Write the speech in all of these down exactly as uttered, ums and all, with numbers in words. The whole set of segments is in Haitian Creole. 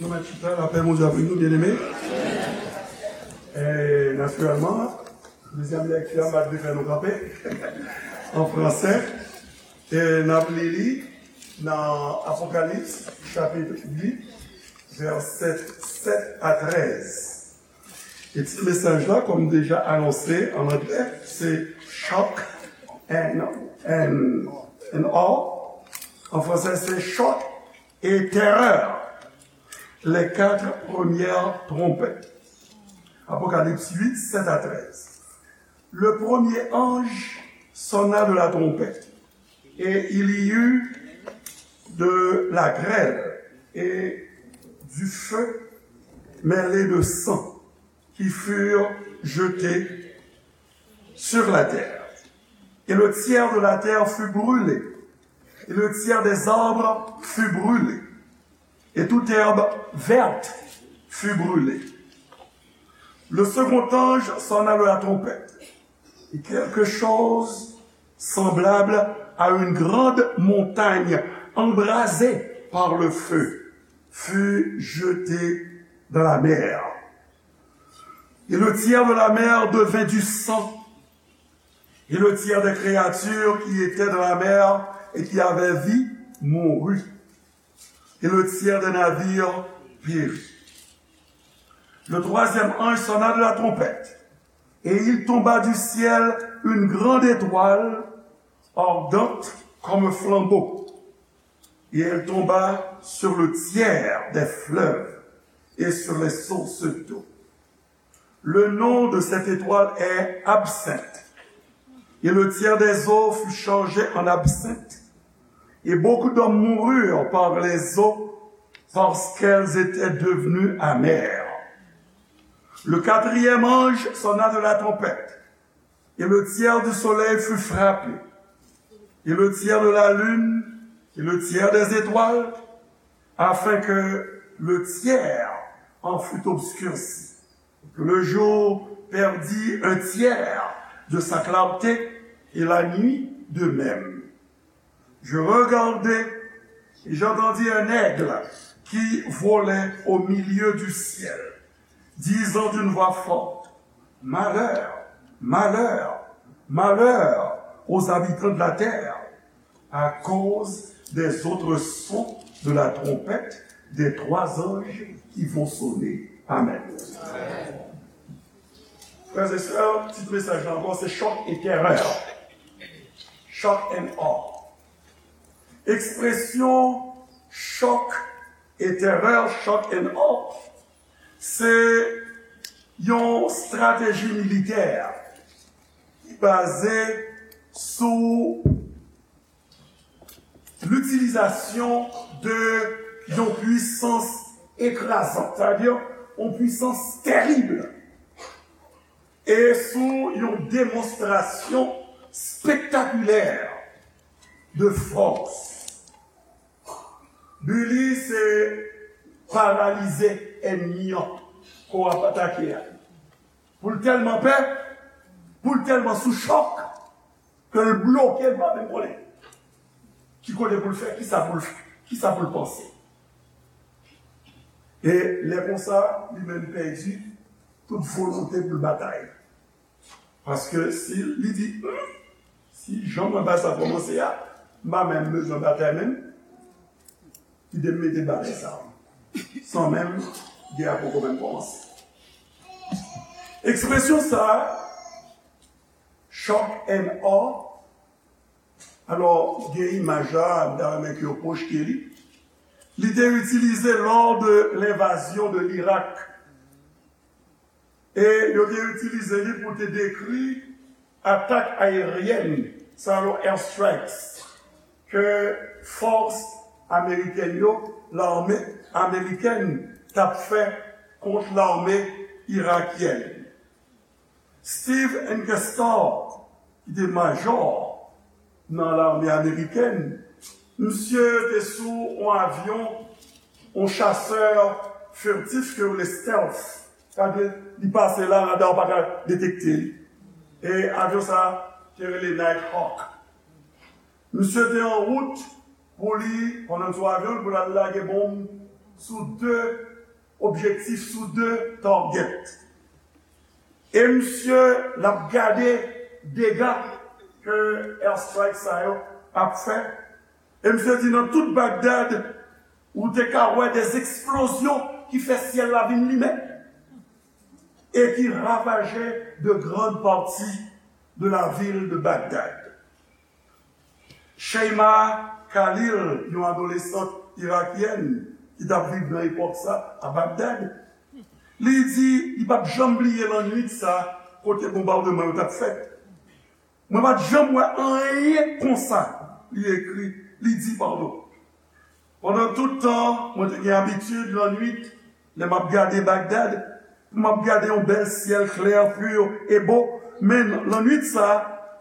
Nou mèt chita, lapè Bondye avèk nou, byeneme. E, natirèlman, dezyèm lèkti a, m ap fè nou kanpe an fransè. E n ap li li nan Apokalips, chapit uit, vèsè sèt a trèz. E tit mesaj la, kòm deja anonse an anglè, se Shock and, and, and Awe. An fransè, se Choc et Terreur, les quatre premières trompettes. Apocalypse huit, sept à treize. Le premier ange sonna de la trompette, et il y eut de la grêle et du feu mêlé de sang qui furent jetés sur la terre. Et le tiers de la terre fut brûlé, et le tiers des arbres fut brûlé, et toute herbe verte fut brûlée. Le second ange sonna de la trompette, et quelque chose semblable à une grande montagne embrasée par le feu fut jeté dans la mer. Et le tiers de la mer devint du sang, et le tiers des créatures qui étaient dans la mer et qui avaient vie mourut, et le tiers des navires périt. Le troisième ange sonna de la trompette, et il tomba du ciel une grande étoile, ardente comme un flambeau, et elle tomba sur le tiers des fleuves et sur les sources d'eau. Le nom de cette étoile est Absinthe. Et le tiers des eaux fut changé en absinthe. Et beaucoup d'hommes moururent par les eaux, parce qu'elles étaient devenues amères. Le quatrième ange sonna de la trompette, et le tiers du soleil fut frappé, et le tiers de la lune, et le tiers des étoiles, afin que le tiers en fût obscurci, que le jour perdît un tiers de sa clarté, et la nuit de même. Je regardai, et j'entendis un aigle qui volait au milieu du ciel, disant d'une voix forte, malheur, malheur, malheur aux habitants de la terre, à cause des autres sons de la trompette des trois anges qui vont sonner. Amen. Frères et sœurs, tit mesaj la ankò, se Choc et Terreur. Shock and Awe. Ekspresyon chòk e terè, shock and awe, se yon strateji militè ki baze sou litilizasyon de yon pwisans ekrazant, sa vle di yon pwisans terib, e sou yon demonstrasyon spektakilè de fòs. Bi li se paralize ènmi an ke w ap atake a. Pou l tèlman pè, pou l tèlman sou chòk, ke l bloke, l pa menm konnen ki kote pou l fè, kisa pou l fè, kisa pou l panse. E lè konsa, li menm pèdi tout volonte pou l batay. Paske si li di, hmm, si jan mwen bay sa kòmanse a, m pa menm bezwen batay menm, kite m mete bagay sa san menm gè a poko menm kòmanse. Ekspresyon sa a, shock and awe, alò, gen imaj la, m ta renmen ke yo pwojte li. Li te itilize lors de l'invasion de l'Irak. E yo te itilize li pou te dekri atak ayeryèn, sa yo airstrikes, ke fòs amerikèn yo, lame amerikèn, t ap fè kont lame irakyèn. Steve Ankestar, ki te majò nan lame amerikèn, misye te sou yon avyon, yon chasè furtif ke yo rele stealth. Sa vle di, li pase la, rada w pa ka detekte li. E avyon sa te rele Nighthawk. Misye te an wout pou li, pandan l sou avyon, pou l al lage bonm sou de objektif, sou de target. E misye l ap gade dega ke airstrike sa yo ap fè. E misye di nan tout Bagdad, ou te ka wè de eksplozyon ki fè syèl la vin limen e ki ravaje de grandes parties de la ville de Bagdad. Sheima Khalil, yon adolesant irakyèn ki t ap viv nan epòk sa a Bagdad, li di li p ap janm bliye lannwit sa kote bonbadman yo t ap fèt. Mwen pa t janm wè anyen konsa, li ekri, li di, padon. Pandan tout tan, mwen te gen abitid lannwit, lè m ap gade Bagdad, pou m ap gade yon bèl syèl klè, pur e bo, men lannwit sa,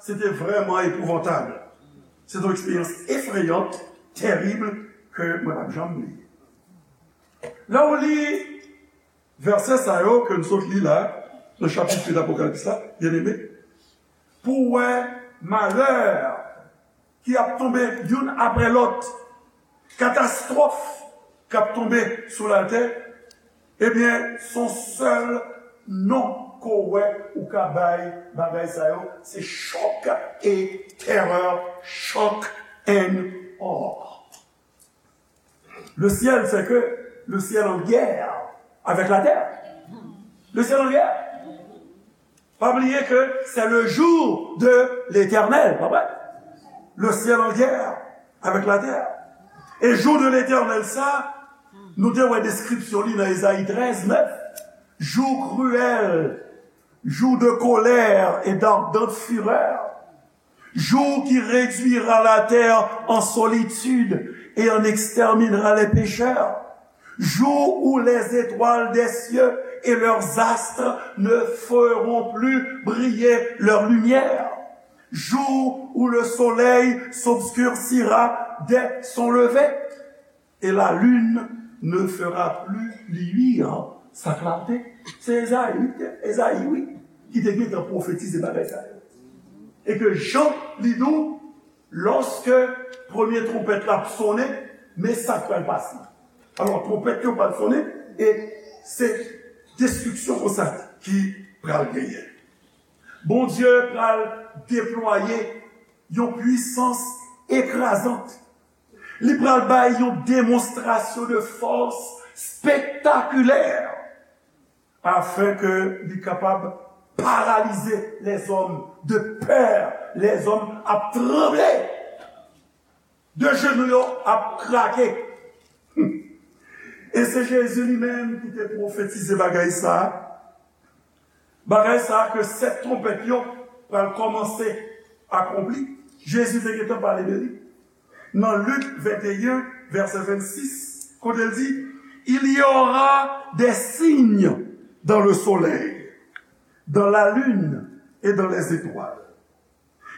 se te vrèman epouvantab. Se te yon eksperyans efreyant, tèrib, ke mwen p ap janm bliye. Lè w li vèsè sa yo ke n sot li la, nan chapit uit Apokalips la, byeneme, pou w wè malè ki ap tonbe youn apre lòt, katastwòf k ap tonbe sou latè, ebyen, s on sèl non ke w wè ou ka bay bagay sa yo, se chòk e tèrè, shock and awe. Le ciel, c'est que le ciel en guerre avec la terre. Le ciel en guerre. Pa bliye ke c'est le jour de l'Éternel, pa vre? Le ciel en guerre avec la terre. E jou de l'Éternel sa, nou te wè deskripsyon li nan Ezayi trèz nèf. Jour cruel, jour de colère et d'ardente fureur. Jour qui réduira la terre en solitude et en exterminera les pécheurs. Jour où les étoiles des cieux et leurs astres ne feront plus briller leur lumière. Jour où le soleil s'obscurcira dès son lever et la lune ne fera plus luire sa clarté. Se Ezayi, wi, Ezayi, wi, ki te gentan pwofetize bagay sa yo. E ke Jan, li di w, lòske premye twonpèt la ap sonnen, men sa k pral pase. Alò, twonpèt yo pral sonnen, e se destriksyon konsa ki pral genyen. Bondye pral deplwaye yon pwisans ekrazant. Li pral bay yon demonstrasyon de fòs spektakilè, afin ke li kapab paralize lèzòm de pè. Lèzòm ap tranble, de jenou yo ap krake. E se Jezi li menm ki te pwofetize bagay sa a. Bagay sa a ke sèt twonpèt yo pral kòmanse akonpli. Jezi te gentan pale de li. Nan Lik venteyen, vèsè vennsis, kote l di, il y aura des signes dans le soleil, dans la lune et dans les étoiles.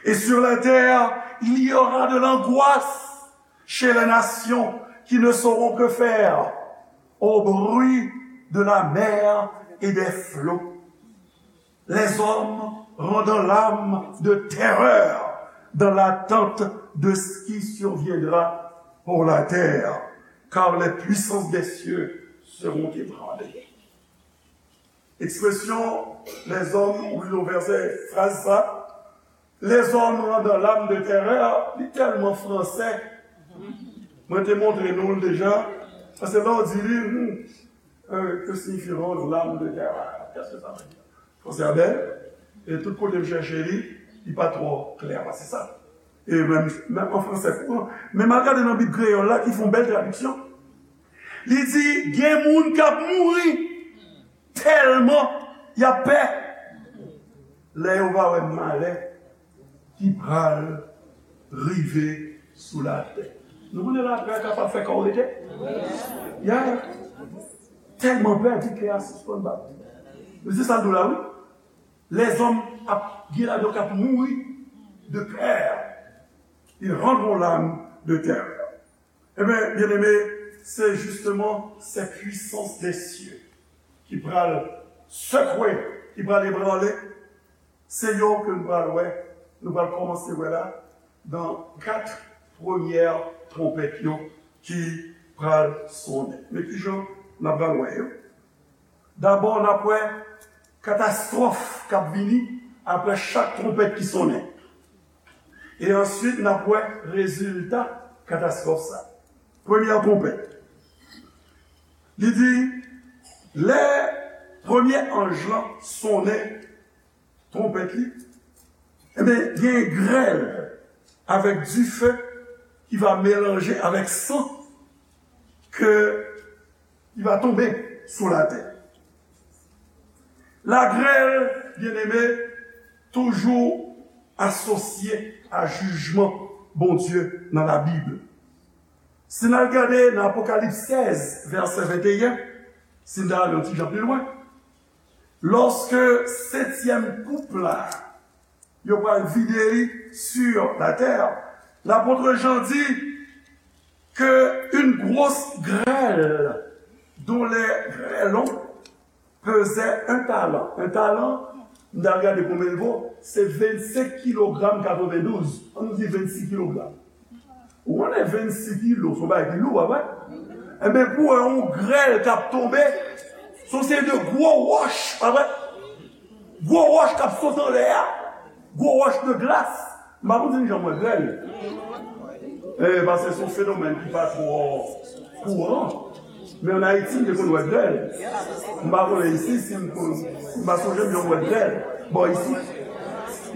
Et sur la terre, il y aura de l'angoisse chez les nations qui ne sauront que faire au bruit de la mer et des flots. Les hommes rendant l'âme de terreur dans l'attente de ce qui surviendra pour la terre, car les puissances des cieux seront ébranlées. Ekspresyon lèzòm, ou li nan vèsè, fraz sa, lèzòm randan lam de tèrè, li tèlman fransè. Mwen te montre nou l deja, paske lè w di li, hmm, euh, que signifie rendre l'âme de terreur? Qu'est-ce que ça veut dire? Fransè a bèl, e tout kote m chèche li, li pa twò klè pase sa. E menm, menm an fransè kouran, men m al gade nan Bib kreyòl la ki fè yon bèl tradiksyon. Li di, gen moun k ap mouri tèlman y ap pè lè yo va wè malè ki pral rive sou latè. Nou konnen lapè kapab fè kò w rete? Ya. Tèlman pè, di kè a sispann bat. Mesye, sa l di w la, wi. Lèzòm ap gen ladan k ap mouri de pè. Ils rendront l'âme de terreur. Ebyen, byeneme, se jisteman ces puissances des cieux ki pral sekwe, ki pral ebranle, se yo ke nou pral wè, nou pral kòmanse wè la, nan kat premyè twonpèt yo ki pral sonnen. Men kijan n ap pral wè yo? Dabò, n ap wè katastwòf k ap vini apre chak twonpèt ki sonnen. E answit, n ap wè rezilta katastwòf sa. Premyè twonpèt. Li di, lè premye anj lan sonnen twonpèt li, ebyen, gen grèl avèk dife ki va melanje avèk san ke ki va tonbe sou latè. Lagrèl, byeneme, toujou asosye a jijman Bondye nan Labib. Si n al gade nan Apokalips sèz, vèsè venteyen, si n ta al yon ti jan pi lwen, lòske setyèm koup la, yo pral vide li sur la terre, lapot Jan di que une grosse grêle dont les grêlons pesaient un talent. Un talent, m ta gade konbyen l vo, se vennsenk kilogram katrevendouz. Ann nou di vennsis kilogram. Ou konnen vennsis kilo, se yon bagay ki lou, pa vre? Enben, pou wè yon grèl k ap tonbe, se yon seri de gwo wòch, pa vre? Gwo wòch k ap sot anlè a, gwo wòch de glas. M pa konn si n janm wè grèl. Eh, paske se yon fenomèn ki pa twò kouran. Men ann Ayiti, m te konn wè grèl. M pa konnen isi, si m konn, m pa sonje m janm wè grèl bò isi.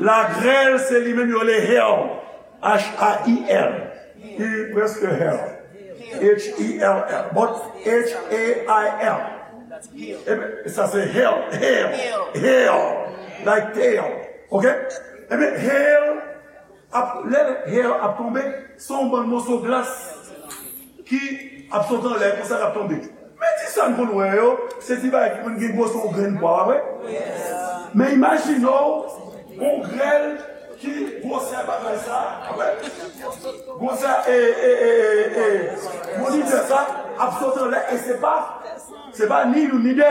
Lagrèl, se li menm yo rele hail. H A I L. Li prèske hail. H E L L. But H A I L. Ebyen, sa se hail, hail, hail. Like tail. Ok? Ebyen, hail, ap, lè hail ap tonbe, se yon bann moso glas ki ap sot anlè, konsa k ap tonbe. Men ti sa n konn wè yo, se ti bagay ki konn gen gwosè yon grenn pwa, pa vre? Men imajine w, yon grèl ki gwosè bagay sa, pa vre? Gwosè, e, e, e, e, e, monitè sa ap sot anlè, e se pa, se pa ni youn ni de.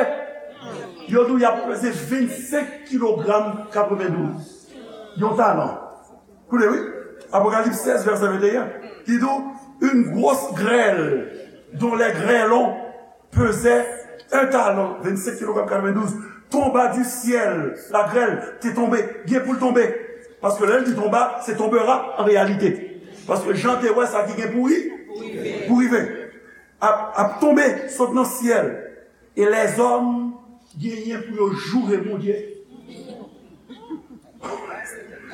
Yo di w y ap peze vennsenk kilogram katrevendouz. Yon talan. Koute, wi. Apokalips sèz, vèsè venteyen. Li di w, une grosse grêle dont les grêlons pesaient un talent, vennsenk kilogram katrevendouz, tomba du ciel. Lagrèl te tonbe, gen pou l tonbe. Paske lè l di tomba, se tombera an reyalite. Paske Jan te wè sa ki gen pou ri, pou rive. Ap, ap tonbe, sot nan syèl. E lèzòm genyen pou yo joure Bondye.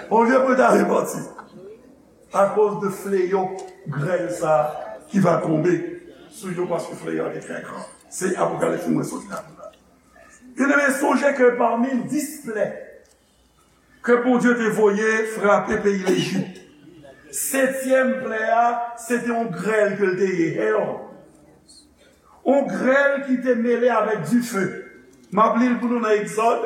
Olye pou yo ta repanti. Akoz de fleyo grèl sa ki va tonbe sou yo, paske fleyo a te trè gran. Se Apokalips mwen sot la. Byeneme, sonje ke pami dis plè ke Bondye te voye frape peyi Lejip, setyèm plè a, se te yon grèl ke l te ye, hail. Yon grèl ki te mele avèk dife. M ap li l pou nou nan Egzòd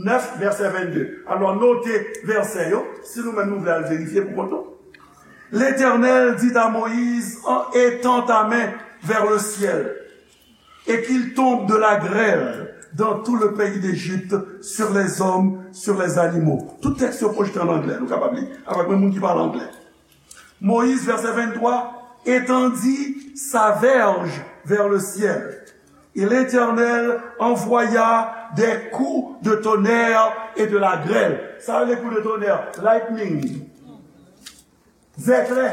nèf, vèsè vennde. Alò, note vèsè yo, si nou menm nou vle al verifye pou kont nou. L'Éternel dit à Moïse, en étend ta main vers le ciel, et qu'il tombe de la grêle dans tout le pays d'Égypte, sur les hommes, sur les animaux. Tout tèks yo pwojte an anglè, nou kapab li avèk menm moun ki pale anglè. Moïse, verset vingt-trois, étendit sa verge vers le ciel. Et l'Éternel envoya des coups de tonnerre et de la grêle. Sa vle kou de tonnerre, lightning. Zèklè.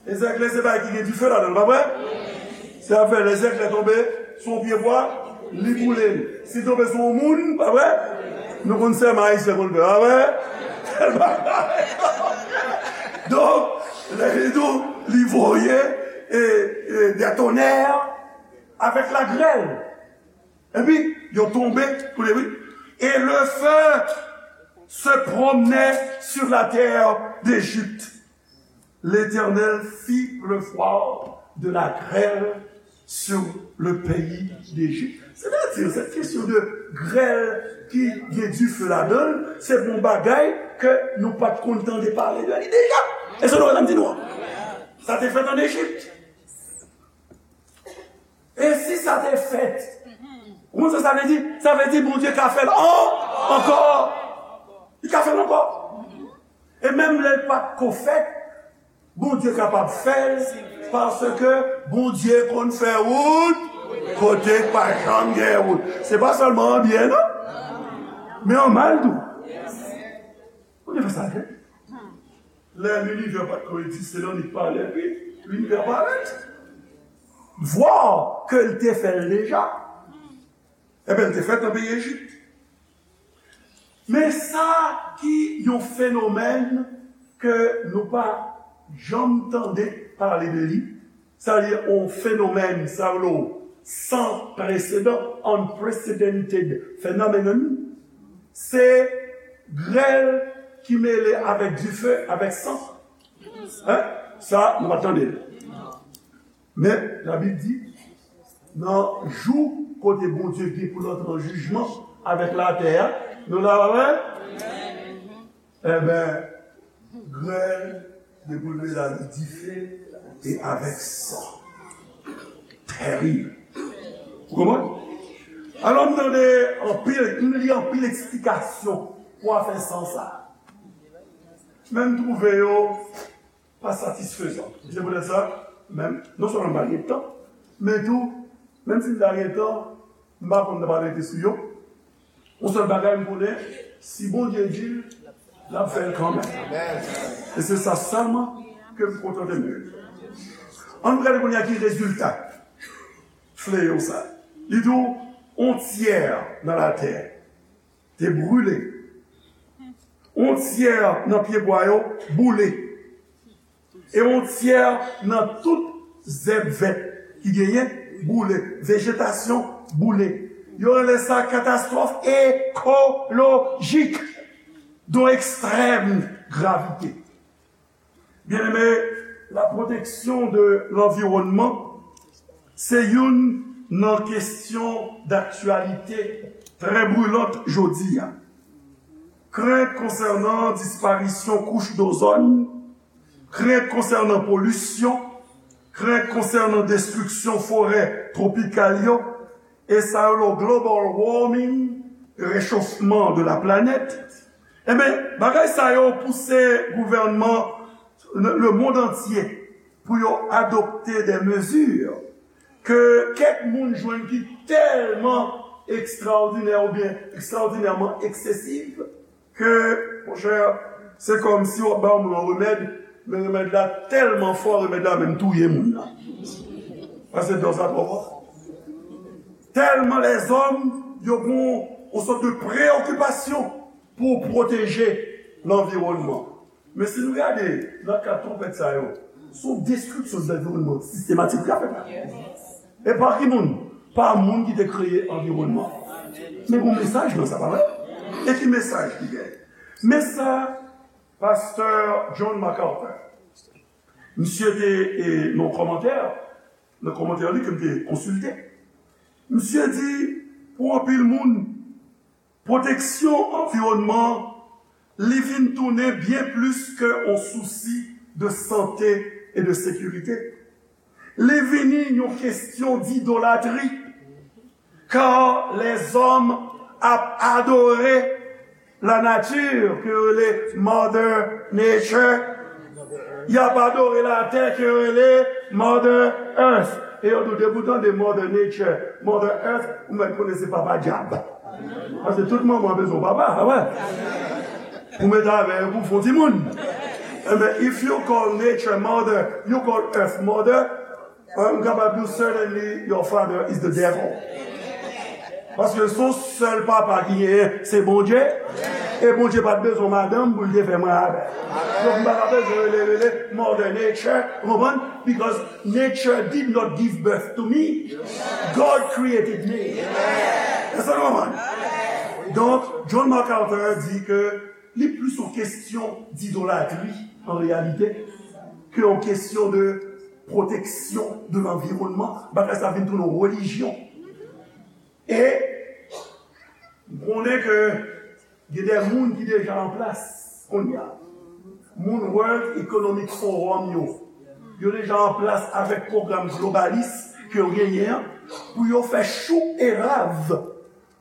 E zèklè se bagay ki gen dife ladan l, pa vre? Se afè lè zèklè tonbe sou yon pye bwa, li boule l. Si l tonbe sou yon moun, pa vre? Nou konn sèman ayisyen konn fè, pa vre? Donk, lè li di w, li voye, e, e, des tonnerres avec la grêle. Epi, yo tonbe, koute, wi. Et le feu se promenait sur la terre d'Égypte. L'Éternel fit pleuvoir de la grêle sur le pays d'Égypte. Sètadi, sèt kesyon de grèl ki gen dife ladan l, se pou yon bagay ke nou pa t konn tande pale de li deja. E se nou sa m di nou an. Sa te fèt ann Ejip. E si sa te fèt, ou konn sa sa vle di? Sa vle di Bondye ka fè l an-, ankò. Li ka fè l ankò. E menm lè l pa t ko fèt, Bondye kapab fè l, paske Bondye konn fè wout. Kote k pa janm gen wout. Se pa sèlman an byen, non. Men an mal tou. Ou te fè sa, hein? Lè linivè pa t ko egziste, nan lit pa lè, pi linivè parèt. Vwa ke l te fè l deja. Ebyen, l te fèt nan peyi Ejip. Men sa ki yon fenomèn ke nou pa janm tande pale de li, sa li yon fenomèn, sa yo san presedan, unprecedented phenomenon, se grèl ki mele avèk dife, avèk san. Hein? Sa, nou pa tande l. Men, Labib di, nan jou kote Bondye gen pou l antre an jijman avèk latè a, nou la, pa vre? Enben, grèl, depi l vle la, li dife e avèk san. Tèrib. Ou konprann? Alò, m tande anpil, m li anpil eksplikasyon pou afè san sa. Men m twouve yo pa satisfezan. Se poutèt sa, menm, non sèlman m pa gen tan, men tou, menm si m ta gen tan, m pa konn nan pa rete sou yo. Yon sèl bagay m konnen, si Bondye di l, l ap fè l kanmenm. E se sa sèlman ke m kontante m de li. Ann nou gade kounye a ki rezilta fleyo sa. Li di w, yon tyè nan latè te brile. Yon tyè nan pyebwa yo boule. E yon tyè nan tout zèb vèt ki genyen boule. Vejetasyon boule. Yo rele sa katastwòf ekolojik de ekstrèm gravite. Byeneme, la protection de l'environnement se youn nan kesyon daktyalite trè brilant jodi a. Krent konsènan disparisyon kouch dozòn, krent konsènan polisyon, krent konsènan destriksyon forè twopikal yo, e sa yo rele global warming, rechofman de la planèt. Enben, bagay sa yo pouse gouvènman le, le monde entier pou yo adopte de mezi ke kèk moun jwenn ki tèlman ekstraòdinè oubyen ekstraòdinèman eksesiv ke, monchè, se kòmsi w ap ba yon moun yon remèd, men remèd la tèlman fò, remèd la menm touye moun nan. Paske dòz la twò fò. Tèlman lèzòm, yo gen yon sòt de preyokipasyon pou pwoteje lanviwònman. Men si nou gade nan kad twonpèt sa yo, se yon destriksyon de lanviwònman sistematik ki ap fèt la. E pa ki moun? Pa moun ki te kreye anviwònman. Men gon mesaj nan sa, pa vre? E ki mesaj ki genyen? Men sa pastè John MacArthur, misye te, e, nan kòmantè, nan kòmantè li ke m te konsilte, misye di, pou anpil moun, pwoteksyon anviwònman, li vin tounen byen plis ke yon sousi de sante e de sekirite. Li vini yon kesyon d'idolatri, kar lèzòm ap adore la nature, ke yo rele Mother Nature. Y ap adore latè, ke yo rele Mother Earth. E yo tou, depi w tande Mother Nature, Mother Earth, ou mèt konnen se papa dyab. Paske tout manman bezwen yon papa, pa vre? Ou mete avè yo pou fè yon timoun. Enben, if you call nature mother, you call earth mother, m kapab di w, certainly your father is the devil. Paske se yon sèl papa ki genyen, se Bondye. E Bondye pa t bezwen madanm pou l te fè mwen avè l. Donk, m pa ka bezwen rele, rele Mother Nature, ou konprann? Because nature did not give birth to me. God created me. Èske nou konprann? Donk, John MacArthur di ke li plis yon kesyon d'idolatri, an reyalite, ke yon kesyon de pwoteksyon de lanviwònman. Bagay sa vin tounen yon relijyon. E m konnen ke gen de moun ki deja an plas kounye a. Moun World Economic Forum yo, yo deja an plas avèk pwogram globalis ke yo genyen an, pou yo fè chou e rav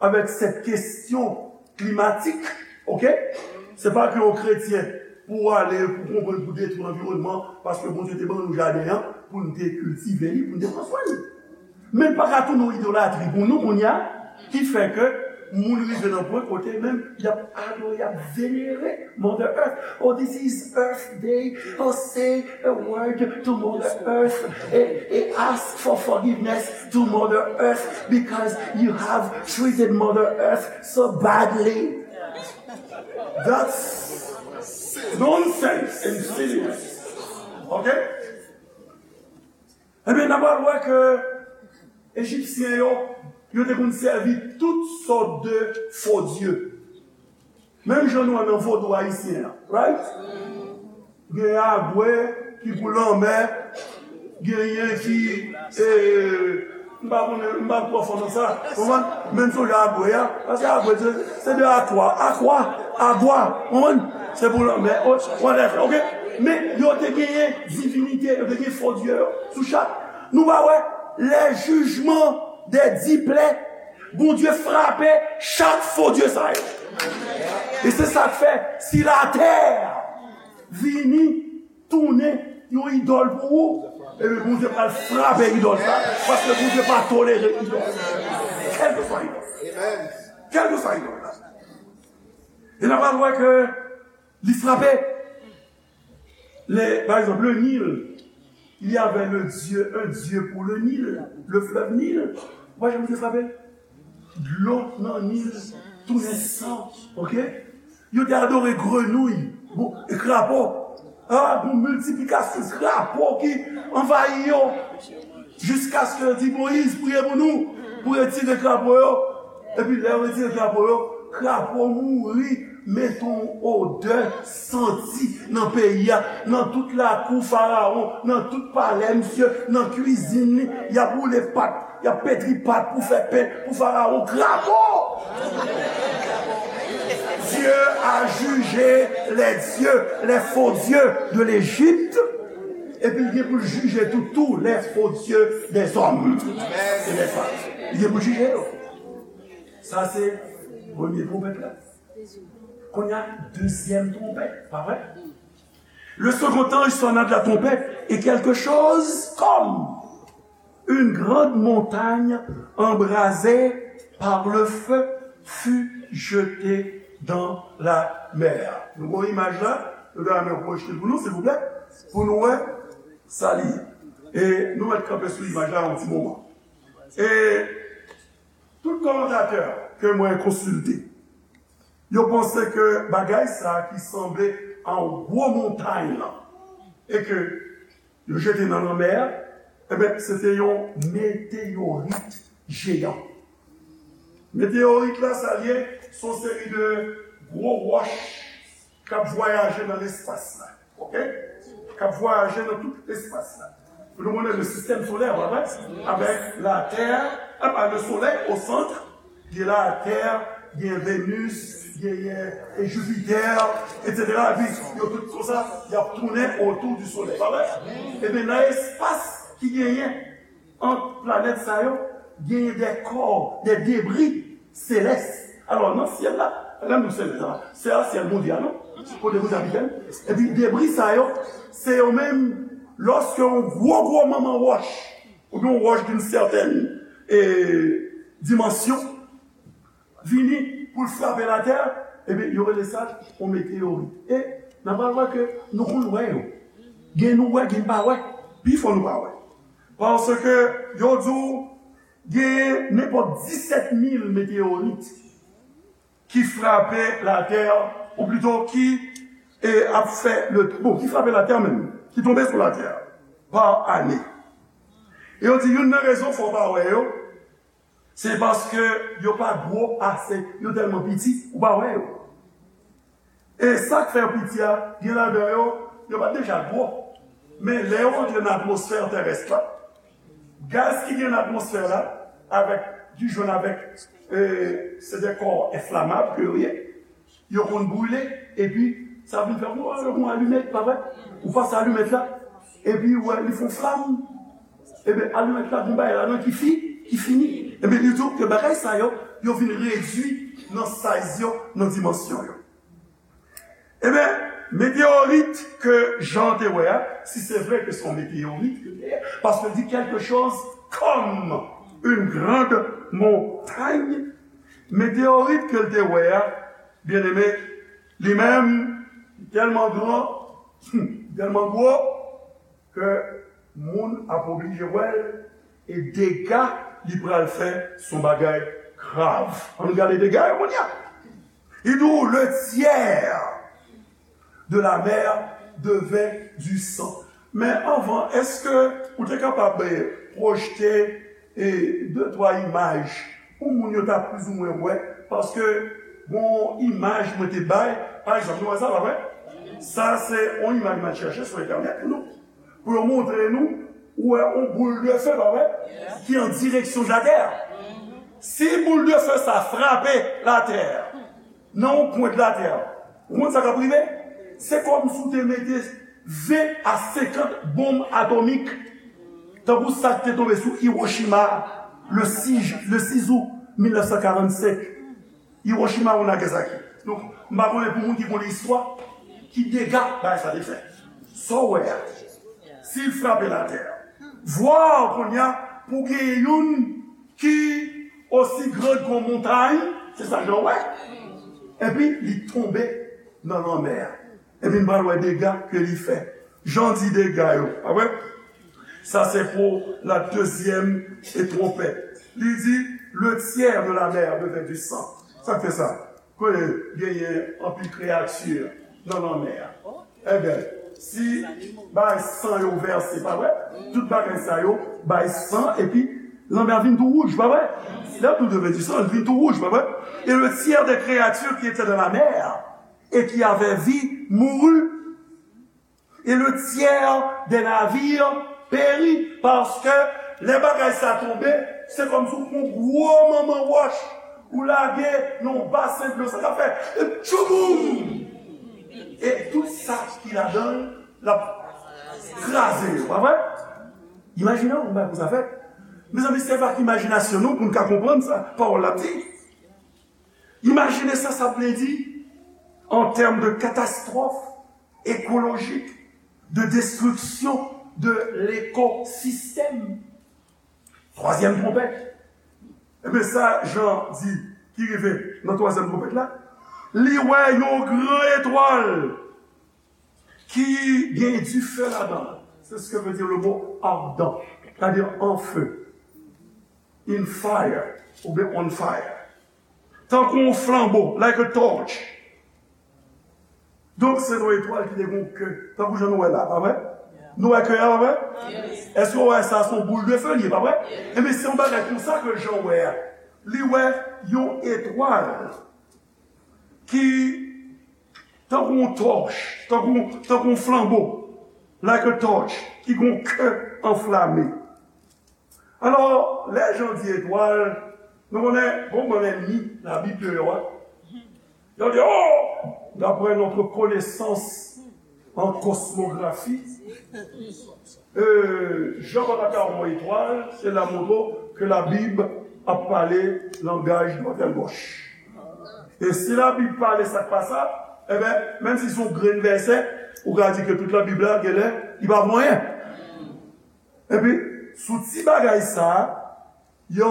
avèk sèt kesyon klimatik, oke? Se pa ke yon kretyen pou w ale, pou konprann, pou detwi lanviwònman, paske Bondye te ban nou jaden an, pou n te kiltive li, pou n te pran swen li. Men l pa ka tounen yon idolatri pou nou kounye a, ki fè ke moun rive nan pwen kote menm y ap adore, y ap venere Mother Earth. Oh, this is Earth Day. Oh, say a word to Mother Earth. And, and ask for forgiveness to Mother Earth because you have treated Mother Earth so badly. That's nonsense and silliness. Ok? Ebyen, n a pral wè ke Ejipsyen yo, yo te konn sèvi tout sòt de fo dye. Menm jan nou wè nan vodou ayisyen an, right? Genyen agwe ki pou lanmè, genyen ki, e, m pa konnen, m pa twò fò nan sa, konprann? Men m sonje agwe a, paske agwe se, se de akwa, akwa, agwa, konprann? Se pou lanmè, o, whatever, ok? Men yo te genyen divinite, yo te genyen fo dye yo sou chak. Nou pa wè, lè jijman dè di plè, Bondye frape chak fo dye sa yo. E se sa k fè, si latè vini tounen yon idòl pou ou, ebyen Bondye pral frape idòl sa, paske Bondye pa tolere idòl. Kèlkeswa idòl. Kèlkeswa idòl la. E n a pral wè ke li frape. Le, par exemple, le Nil, il y avait le Dieu, un Dieu pour le Nil, le fleuve Nil. Ou pa janm te frape? Dlo nan Nil tounen san, ok? Yo te adore grenouy, bon, e krapo. Ah, gon miltiplikasyon krapo ki anvayi yo. Jiskaske yo di, Moyiz, priye pou nou, pou retire krapo yo. Epi lè yo retire krapo yo, krapo mouri, mete yon odè santi nan peyi a, nan tout lakou Farawon, nan tout palè misye, nan kwizin li, y ap woule pat, y ap petri pat pou fè pen pou Farawon. Krapo! Dieu a jugé les dieux, les faux dieux de l'Égypte. Epi l gen pou l jije tou, tous les faux dieux des hommes et des femmes. Li gen pou l jije yo. Sa se premye twonpèt la. Kounye a, dezyèm twonpèt, pa vre? Le second ange sonna de la trompette, et quelque chose comme une grande montagne embrasée par le feu fut jetée dans la mer. Nou gen imaj la, nou ta renmen pwojte l pou nou, silvouplè, pou nou wè sa li ye. E nou mèt kanpe sou imaj la yon ti moman. E tout kòmantatè ke mwen konsilte, yo panse ke bagay sa ki sanble a yon gwo montay lan, e ke yo jete nan lanmè a, ebyen, se te yon meteyorit jeyan. Meteyorit la, sa l ye, se yon seri de gwo wòch k ap vwayaje nan lespas la. Ok? K ap vwayaje nan tout lespas la. Nou konnen le sistèm solè, pa vre? Avèk Latè, apa, le Solèy o sant, gen Latè, gen Venus, gen, e, Jupiter, et cetera. Epi, yo tout konsa, y ap tounen otou di Solèy, pa vre? Ebyen, nan espas ki genyen ant planèt sa yo, genyen de kò, de debri selès. Alò, nan syèl la, pa gen nou selès la, se a syèl Bondye a, non? Kote Bondye abite. Epi debri sa yo, se yo menm, lòske yon gwo, gwo manman wòch, oubyen yon wòch d'une certaine, e, dimansyon, vini pou l frape latè, ebyen, yo rele sa yon meteyorit. E n a pral wè ke nou konn wè yo. Gen nou wè, gen pa wè. Pifò nou pa wè. Paske yo di w genyen nenpòt disèt mil meteyorit ki frape latè, ou plito ki, e, ap fè le, bon, ki frape latè menm, ki tonbe sou latè pa ane. E yo di youn nan rezon fè w pa wè yo, se paske yo pa gwo ase, yo tèlman piti, ou pa wè yo. E sa k fè yo piti a, gen ladan yo, yo pa t deja gwo. Men lè yo antre nan atmosfè terès la, gaz ki gen nan atmosfè la, avèk, ki jwenn avèk, e, se de kò enflamab ke yo ye, yo konn brile, epi sa vin fè, ou wè, yon alimèt, pa vre? Ou pase alimèt la, epi ou wè, li fè yon flanm. Ebyen, alimèt la, gen bagay ladan ki fi, ki fini. Ebyen, li di w ke bagay sa yo, yo vin redui nan size yo, nan dimansyon yo. Ebyen, meteyorit ke Jan te wè a, si se vre ke se yon meteyorit ke li ye, paske l di quelque chose comme Une grande montagne. Meteyorit ke l te wè a, byeneme, li menm, tèlman gran, tèlman gwo, ke moun ap oblije wè l, e dega li pral fè se yon bagay grav. Ann gade dega yo kounye a. Li di w, le tiers de la mer devint du sang. Men anvan, èske ou te kapab, eh, pwojte, eh, de twa imaj pou moun yo ta plizoumwen wè? Paske gon imaj mwen te bay, pa egzanp, nou wè sa, pa vre? Sa se yon imaj mwen chèche sou entènèt pou nou, pou yo montre nou, ou wè yon boul de feu, pa vre? Ki an direksyon de la terre. Si boul de feu sa frape la terre, nan yon pwent latè, ou konn sa k ap rive? Se kòmsi w te mete ven a senkant bonm atomik, tankou sa k te tonbe sou Hiroshima le sis, le sis out mil nèf san karannsenk. Hiroshima ou Nagasaki. Donk, m pa konnen pou moun ki konn istwa, ki dega bagay sa te fè. Sa w wè a, si l frape latè, vwa kounye a pou genyen youn ki osi gran ke yon montay, se sa Jan wè, epi li tonbe nan lanmè a. Epi n pral wè dega ke li fè. Jan di dega yo, pa vre? Sa se pou la dezyèm e twonpèt. Li di, le tiers de la mer devint du sang. Sa k fè sa? Kote genyen anpil kreyati nan lanmè a. Ebyen, si bay san yo vèse, pa vre? Tout bagay sa yo bay san, epi lanmè a vin tou wouj, pa vre? Lè tout devyen di san, li vin tou wouj, pa vre? Et le tiers des créatures qui étaient dans la mer et qui avaient vie mourut. Et le tiers des navires périt, paske lè bagay sa tonbe, se kòmsi w pran gwo manman wòch, ou lage nan yon basen dlo, sa k ap fè, e tchouboum! E tout sa ki ladan l, l ap kraze yo, pa vre? Imajine w, yon bagay konsa fèt. Mezanmi, se pa k imajinasyon nou pou n ka konprann sa pawòl la ap di. Imajine sa sa vle di an tèm de katastwòf ekolojik, de destriksyon de lekosistèm. Twazyèm twonpèt. Ebyen, sa Jan di ki rive nan twazyèm twonpèt la, li wè yon gran etwal ki gen dife ladan l. C'est ce que veut dire le mot ardent, c'est-à-dire en feu, in fire, oubyen on fire. Tankou yon flanbo, like a torch. Donk, se yon etwal ki te gen yon ke, tankou jan nou wè la, pa vre? Nou wè ke a, pa vre? Èske w wè sa, se yon boul de feu li ye, pa vre? Ebyen, se yon bagay konsa ke Jan wè a. Li wè yon etwal ki tankou yon tòch, tankou, tankou yon flanbo, like a torch, ki gen yon ke anflame. Alò, lè Jan di etwal, nou konnen, bon, bon, lènmi Labib yo a, yo di, oh, d'après notre connaissance en cosmographie, euh, Jan pa ta ka wè yon etwal, se la montre ke Labib ap pale langaj mòtèl bòch. E si Labib pale sa k pa sa, ebyen, menm si se yon grenn vèsè, ou ka di ke tout Labib la, genlè, li pa vo anyen. Epi, sou ti bagay sa a, yo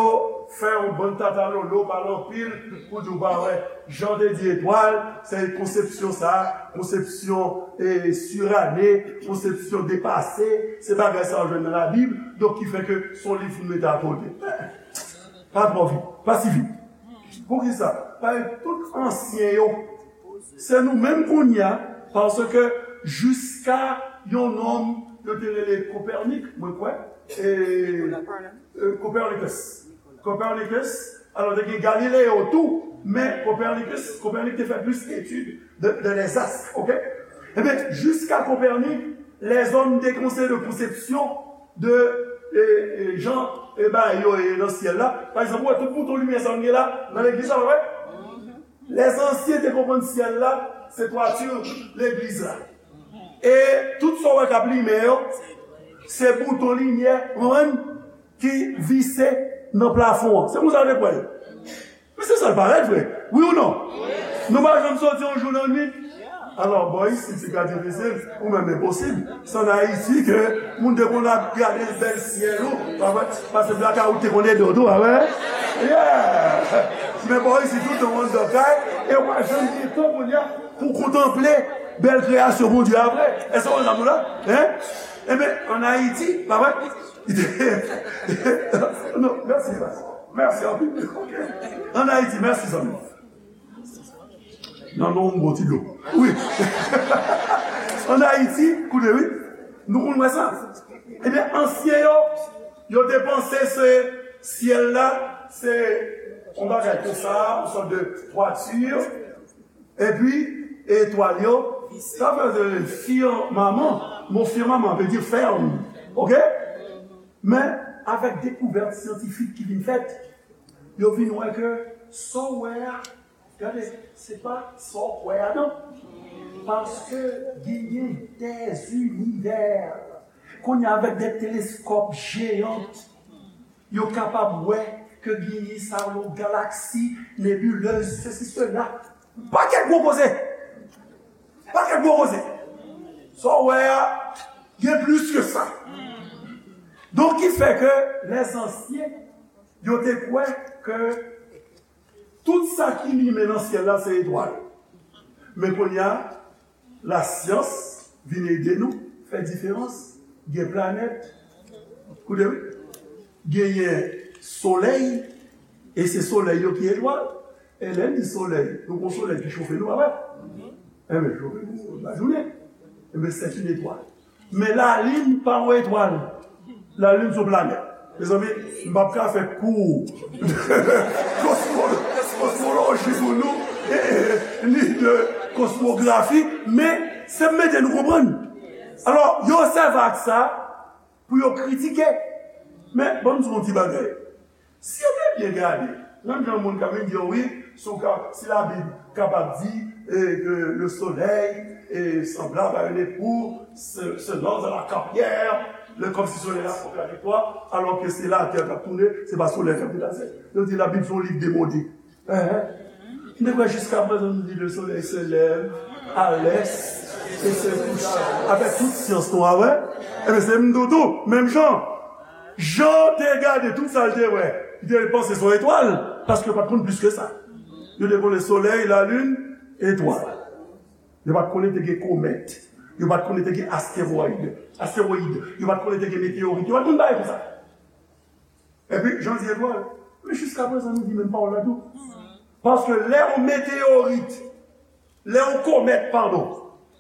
fè yon bann tatalolo, pale anpil, pou di w pa wè. Jan te di etwal, se konsepsyon sa a, konsepsyon, e, sirane, konsepsyon depase, se bagay sa a w jwenn nan Labib, donk ki fè ke se yon liv pou n mete akote. Pa twò vit, pa si vit. Poukisa? Paske tout ansyen yo, se nou menm kounye a, paske jiska yon nonm yo te rele Kopernik, mwen kwè, e, e, Copernicus. Copernicus, alò, te gen Galileo tou, men Copernicus, Kopernik te fè plis etid de, de les astres, ok? Ebyen, jiska Kopernik, lèzòm te konseye de konsepsyon de, e, e, jan, e, bagay yo ye nan syèl la. Pa egzanp, ou wè tout bouton limyè sa nou gen la, nan legliz la, pa vre? Lèzansyen te konprann syèl la, se twati legliz la. E tout sa w wè k ap limen yo, se bouton limyè, ou konprann, ki vise nan plafon an. Se konsa yo te kwè l. Men se sa l parèt vre. Wi ou non? Nou pa janm soti yon jou nan nwit. Alò, bò isit, se ka difisil, ou menm enposib. Se ann Ayiti ke moun te konn ap gade bèl syèl ou, pa vre? Paske blaka ou te konn ede w tou, pa vre? Yeah! Men bò isit, tout an anndan kay, e w pa janm gen tan kounye a pou kontanple bèl kreyasyon Bondye a vre. Èske w konn sa m la? Hein? Enben, ann Ayiti, pa vre? Non, mèsi, mèsi. Mèsi anpil. Ok. Ann Ayiti, mèsi, zanmi. Nan non, yon bon ti dlo. Wi. Ann Ayiti, koute, wi. Nou konn wè sa. Ebyen, ansyen yo, yo te panse se syèl la, se yon bagay konsa, yon sòt de twati. Epi, etwal yo, sa vle di firmaman. Mo firmaman vle di fèm. Ok? Men, avèk dekouvèt syantifik ki vin fèt, yo vin wè ke sa w wè a, gade, se pa sa w kwè a non. Paske genyen dè zinivè. Kounye a, avèk de teleskòp jeyan, yo kapab wè ke genyen sa yo galaksi, nebilez, sesi, sela. Pakèt gwo koze. Pakèt gwo koze. Sa w wè a, gen plis ke sa. Donk, ki fè ke lèzansyen, yo te kwè ke tout sa ki limen nan syèl la, se etwal. Men kounye a, lasyans vin ede nou fè diferans. Gen planèt, koute wi, genyen solèy, e se solèy yo ki etwal. E lè n di solèy, nou gon solèy ki chofe nou, pa vre? Enben, chofe nou lajounen. Enben, se yon etwal. Men lalin pa yon etwal. Lalin se yon planèt. Mezanmi, m p ap ka fè kou kosmo-, kosmoloji pou nou, e, e, ni de kosmografi, men se mete nou konprann. Alò, yo sèvi ak sa pou yo kritike. Men, ban m di w yon ti bagay. Si yo te byen gade, menm jan moun ka vin di yo, wi, si w ka, si Labib kapab di, e, ke le soleil est semblable à une époux, se, se lance dans la carrière, le, kòmsi solèy la kontradikwa, alò ke se latè k ap tounen, se pa solèy k ap deplase. Yo di Labib se yon liv demode. Enhen. M te kwè jiskaprezan nou di le soleil se lève à l'est et se couche. Avèk tout syans nou a wè, enben se m tou tou, menm jan. Jan te gade tout sa l te wè, li te panse se yon etwal, paske yo pa t konn plis ke sa. Yo te konnen solèy, lalin, etwal. Yo pa t konnen te gen komèt. Yo pa t konnen te gen astewòyid, astewòyid. Yo pa t konnen te gen meteyorit. Yo pa t konn bagay konsa. Epi, jan di etwal, men jiskaprezan nou di menm pawòl la tou. Paske lè yon meteyorit, lè yon komèt, padon,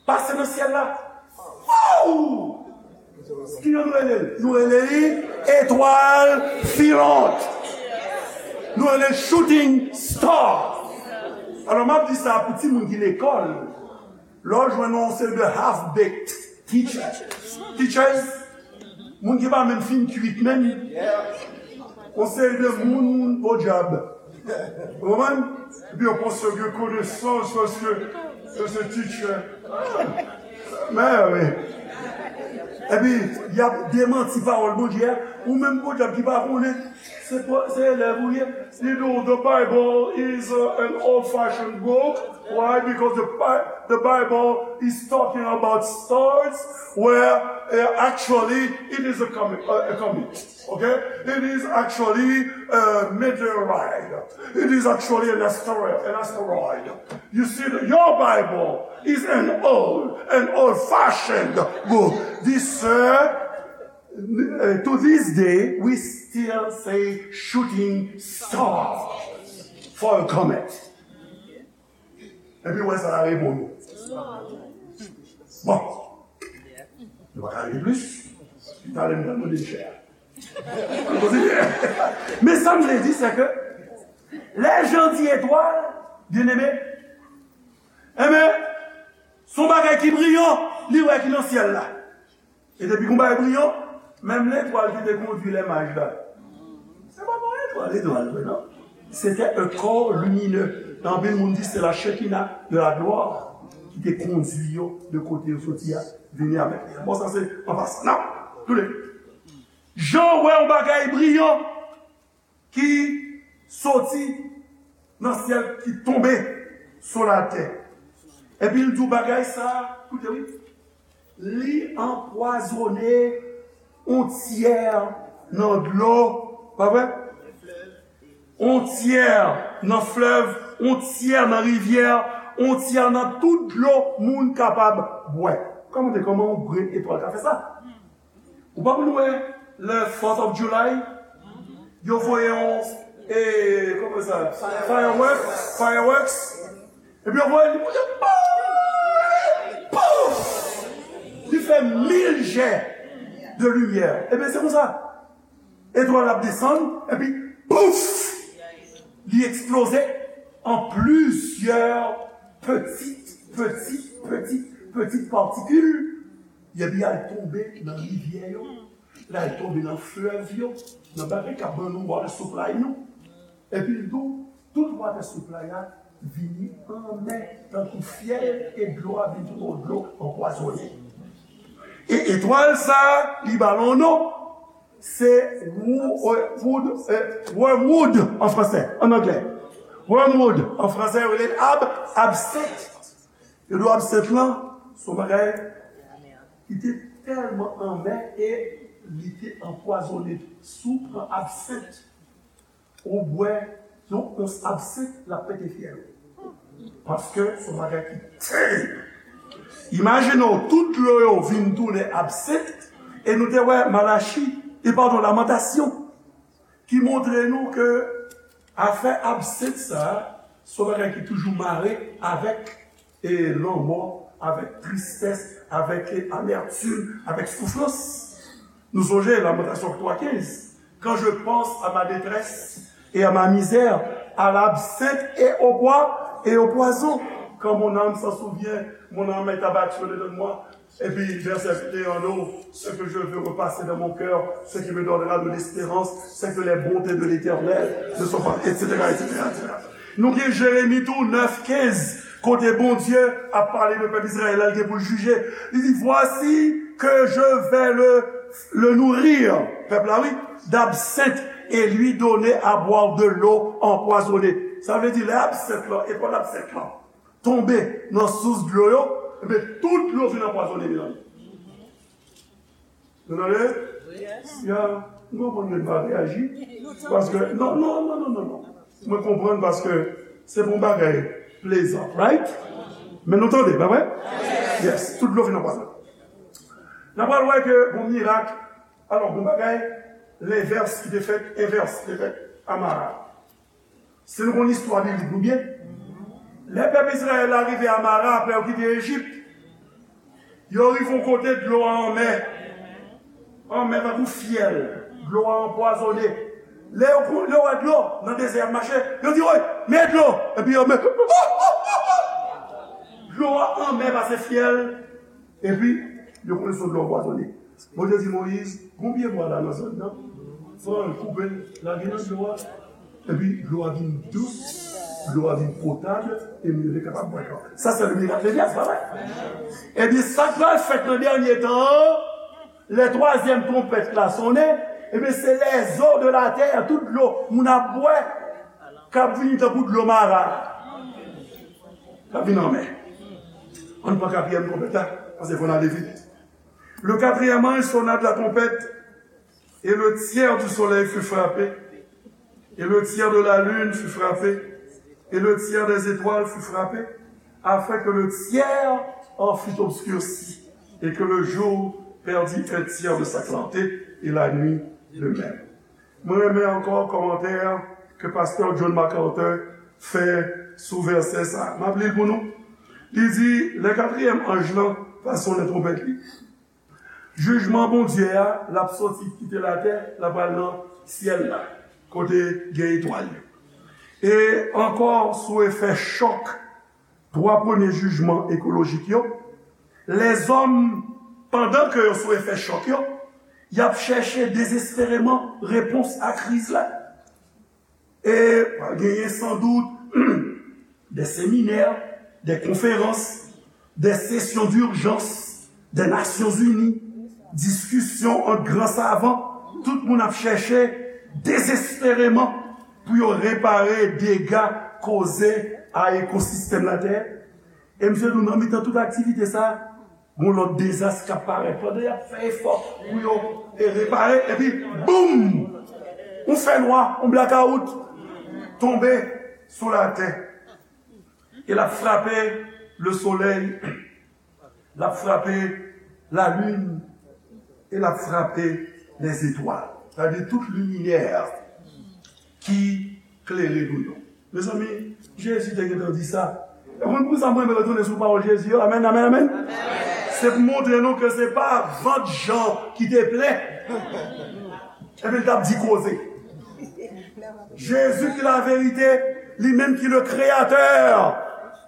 pase nan syèl la, waww! Ki jan nou rele l? Nou rele li etwal filante. Nou rele l shooting star. Alò, m ap di sa pou timoun ki lekòl. Lè w jwenn yon seri de half-baked teachers, teachers, moun ki pa menm fin kuit menm, yon seri de moun podyab. Ou konprann? Epi yo panse yo gen konesans paske yo se teacher. Men wi. Epi, y ap demanti pawòl Bondye a. Ou menm podyab ki pa konnen, se, se elèv ou ye. You know, the Bible is, uh, an old-fashioned book. Why? Because the, Bi- the Bible is talking about stars, where, uh, actually it is a comet. Uh, a comet. Okay? It is actually a meteorite. It is actually an asteroid. An asteroid. You see, the, your Bible is an old, an old-fashioned book. This, uh, uh, to this day, we still say shooting star for a comet. Epi wè sa l ap reponn ou. Bon. Nou pa ka rele plis. Talè m pral mande l chè a. Ann kontinye. Men sa m vle di, se ke lè Jan di etwal, byeneme, enben, se yon bagay ki briyan, li wè ki nan syèl la. E depi gon bagay briyan, menm letwal ki te kondui lè maj la, se pa yon etwal, etwal vre, non. C'était un corps lumineux. Anpil moun di se la Shekinah de la gloire ki te kondui yo de kote yo soti a, vini avèk li. Bon, sa se an pasan. Non, toule. Jan wè yon bagay briyan ki soti nan syèl, ki tonbe sou latè. Epi l di w bagay sa, koute wi, li anpwazonnen yon tyè nan dlo, pa vre? Yon tyè nan flèv, yon tyè nan rivyè, yon tyè nan tout dlo moun kapab bwè. Kòmante kòman yon grenn etwal ka fè sa? Ou pa konn wè le fourth of July, yo voye yon, e, kòman sa, fireworks, fireworks, epi yo voye li monte, pouf! Li fè mil jè de limyè. Ebyen, se konsa. Etwal ap desann, epi pouf! Li eksploze an plizyè pitit, pitit, pitit, pitit patikil, epi al tonbe nan rivyè yo, l al tonbe nan flèv yo, nan bagay k ap ban nou water supply nou. Epi l tou, tout water supply la vini anmè, tankou fyèl, e dlo a vin tounen yon dlo anpwazonnen. E etwal sa, li ba l yon non, se wou-, e, wood, e, wormwood an fransè, an anglè. Wormwood an fransè, yo rele l ab-, absent. Yo di w absent lan, se yon bagay ki te tèlman anmè e li te anpwazonnen. Si w pran absent, ou bwè yon ons absent, l ap pete fyèl ou. Paske se yon bagay ki terib. Imajine w, tout dlo yo vin tounen absent, e nou te wè Malachi, e padon, Lamantasyon, ki montre nou ke afè absent sa, se yon bagay ki toujou mare avèk, e, lanmò, avèk tristès, avèk, e, amètim, avèk soufrans. Nou sonje Lamantasyon twa kenz, quand je pense à ma détresse et à ma misère, à l'absinthe et au poi-, et au poison, quand mon âme s'en souvient, mon âme est abattue au dedans de moi. Epi vèsè venteyen an, ce que je veux repasser dans mon cœur, ce qui me donnera de l'espérance, c'est que les bontés de l'Éternel ne sont pas, et cetera, et cetera, et cetera. Nou gen Jeremi tou, nèf kenz, kote Bondye ap pale de pèp Izrayèl la, li gen pou l jije. Li di, voici que je vais le, le nourrir, pèp la, wi, d'absinthe, et lui donner à boire de l'eau empoisonnée. Sa vle di, lè absent lan, etwal absent lan tonbe nan sous dlo yo, ebyen, tout dlo vin anpwazonnen, mezanmi. Nou tande? Ya, m konprann ke n pa reyaji. Paske, non, non, non, non, non, non. Mwen konprann paske se pou yon bagay plezan, right? Men nou tande, pa vre? Yes, tout dlo vin anpwazonnen. N ap pral wè ke yon mirak, alò, yon bagay, lenvès ki te fèt, envès ki te fèt a Mara. Si nou konn istwa biblik nou byen, lè pèp Izrayèl la rive a Mara apre yo kite Ejip, yo rive yon kote dlo a anmè. Anmè tankou fyèl, dlo a anpwazonnen. Lè yo, lè yo wè dlo nan dezè y ap mache, yo di, woy, men dlo! Epi yo men, dlo a anmè pase fyèl. Epi, yo konnen se yon dlo anpwazonnen. Bondye di Moyiz, gon pye bwa la nan zòn nan, pran l, koupe l, lage nan dlo a. Epi, dlo a vin dous, dlo a vin potab, e moun yo te kapab bwè dlo. Sa, se le miracle de Dieu, pa vre? Ebyen, sa k pral fèt nan dènye tan an, lè twazyèm twonpèt la sonnen, ebyen, se les eaux de la terre, tout dlo moun ap bwè, k ap vini tankou dlo Mara. K ap vin anmè. Ann pran katriyèm twonpèt la, paske fò n ale vit. Le quatrième ange sonna de la trompette, et le tiers du soleil fut frappé, et le tiers de la lune fut frappé, et le tiers des étoiles fut frappé, afin que le tiers en fût obscurci, et que le jour perdît un tiers de sa clarté, et la nuit de même. Mwen renmen ankò kòmantè ke pastè John MacArthur fè sou vèsè sa. M ap li l pou nou. Li di, lè katriyèm anj lan va sonnen twonpèt li, jijman Bondye a, l ap soti kite latè, l ap al nan syèl la, kote gen etwal yo. E ankò sou efè chòk twa premye jijman ekolojik yo, lèzòm, pandan ke yo sou efè chòk yo, y ap chèche dezespereman repons a kriz la. E pral genyen sandout de seminè, de konferans, de sesyon dijans de Nasyonzini, diskisyon ant gran savan, tout moun ap chèche dezespereman pou yo repare dega koze a ekosistèm latè. E misye di w nan mitan tout aktivite sa, gon lòt dezas k ap parèt. Pandan y ap fè efò pou yo e repare, epi boum! Yon fènwa, yon blakawout tonbe sou latè. E l ap frape lesolèy, l ap frape lalin, e l ap frape lèzetwal. Sa vle di tout liminè ki klere nou yo. Mezanmi, Jezi te gentan di sa. E konn poukisa mwen renmen retounen sou pawòl Jezi yo? Amèn, amèn, amèn. Se pou montre nou ke se pa vant Jan ki te plen. Epi l t ap di koze. Jezi ki laverite, li menm ki le kreyatè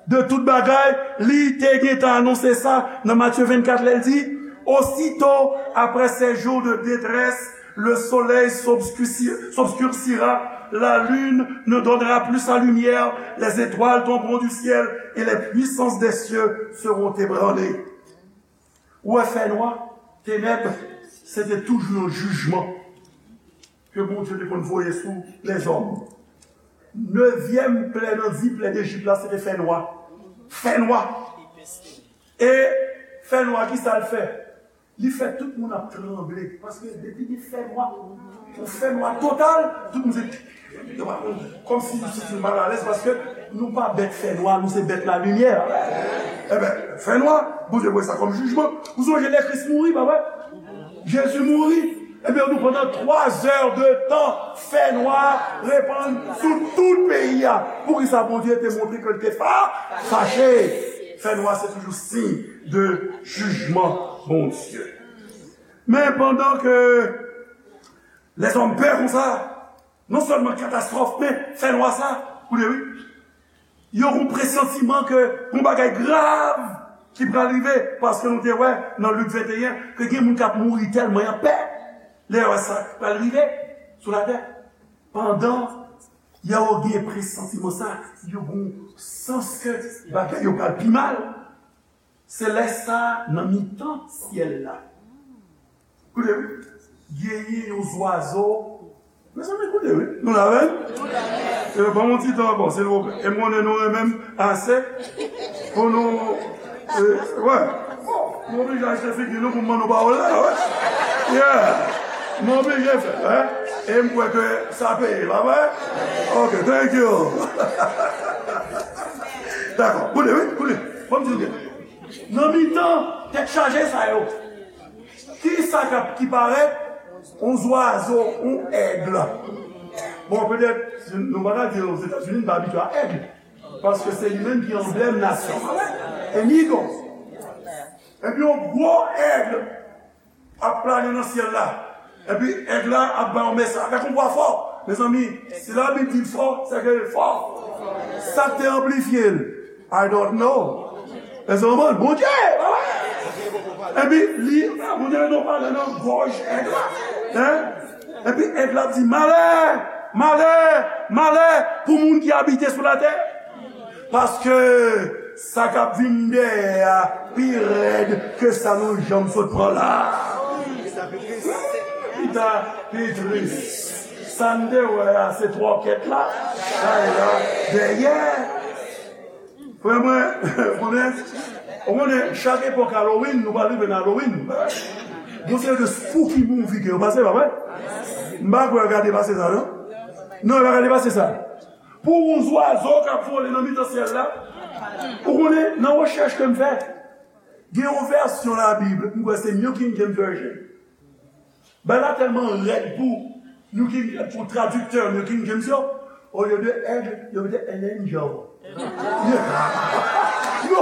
de tout bagay, li te gentan anonse sa nan Matye vennkat, lè l di, Osito, après ces jours de détresse, le soleil s'obscurci- s'obscurcira, la lune ne donnera plus sa lumière, les étoiles tomberont du ciel et les puissances des cieux seront ébranlées. Ou wè fènwa, tenèb, se te toujou yon jijman ke Bondye te konn voye sou lèzòm. Nevyèm plè nan dis plè Dejip la, se te fènwa. Fènwa. E fènwa, ki sa l fè? Li fè tout moun ap tranble. Paske depi gen fènwa, yon fènwa total, tout moun se, yo pa konn, kòmsi yo santi yo malalèz, paske nou pa bèt fènwa, nou se bèt lalimiè. Enben, fènwa, Bondye voye sa kòm jijman. Ou sonje lè Kris mouri, pa vre? Jezi mouri. Ebyen, nou, pandan twa zè de tan, fènwa repann sou tout peyi a. Poukisa Bondye te montre ke l te fa- fache? Fènwa se toujou siy de jijman Bondye. Men pandan ke lèzòm pè konsa, non sèlman katastwòf, men fènwa sa, koute wi, yo gon presantiman ke gon bagay grav ki pral rive, paske nou te wè nan Lik venteyen ke gen moun k ap mouri tèlman y ap pè lè yo wè sa k pral rive sou latè. Pandan yo gen presantiman sa, yo gon sans ke bagay yo pral pi mal. Se lè sa a, nan mitan syèl la, koute wi, genyen yon zwazo. Mezanmi, koute wi. Nou la menm? E ban m yon ti tan ankò, silvouplè. E m konnen nou renmen m ase pou nou, e, wè. Bon, m oblije achte figi nou pou m ban nou pawòl la, wè. Yeah. M oblije fè l, wè. E m kwè ke sa peye, pa vre? Ok, thank you. Dakò, koute wi, koute. Ban m di nou byen. Nan mitan tèt chaje sa yo, ki sa k ap, ki parèt? Yon zwazo, yon èg. Bon, petèt, nou pa ka di Ozetazini, n pa abitye a èg. Paske se li menm ki anblèm nasyon. An eagle. Epi yon gwo èg ap plane nan syèl la. Epi èg la ap bay yon mesaj avèk yon vwa fò. Mezanmi, si Labib di l fò, se ke l fò. Sa k te anplifye l? I don't know. Èske w konprann? Bondye! Epi li, Bondye te pale nan gòj èg la. Hein? Epi èg la ap di, malè, malè, malè pou moun ki abite sou latè. Paske sa k ap vin dèyè a pi rèd ke sa nou janm sot pran la. Pita pi tris. Sa n te wè a, se twòkèt la, chay la, dèyè. Frè mwen, konnen, ou konnen, chak epòk Halloween, nou pral rive nan Halloween. Gon seri de spooky movie ke yo pase, pa vre? M pa kwè yo ka depase sa, non? Non, yo pa ka depase sa. Pou yon zwazo k ap vole nan mitan syèl la, ou konnen, nan rechèch ke m fè, gen yon vèsyon Labib, m kwè se New King James Version. Bagay la tèlman rèd pou New King, pou tradiktè New King James yo, olye de èg, yo mete an angel. Yo,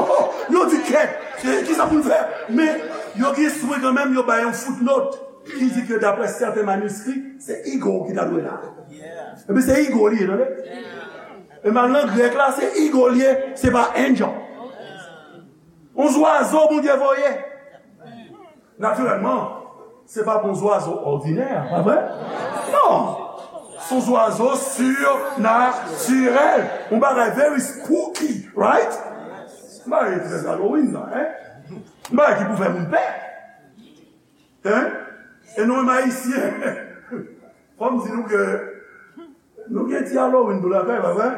yo di kèt, ki sa pou n fè? Men yo gen swen kanmenm, yo bay yon footnote ki di ke daprè sèten maniskri, se eagle ki ta dwe la. Epi se eagle li ye, tande? E men nan grèk la, se eagle li ye, se pa angel. Yon zwazo Bondye voye. Natirèlman, se pa yon zwazo òdinè, pa vre? Non! Se yon zwazo sinatirèl. Yon bagay very spooky, right? Yon bagay trè Halloween la, hein? Yon bagay ki pou fè moun pè. Hein? E nou menm Ayisyen, fò m di nou ke nou gen ti Halloween nou lakay, pa vre?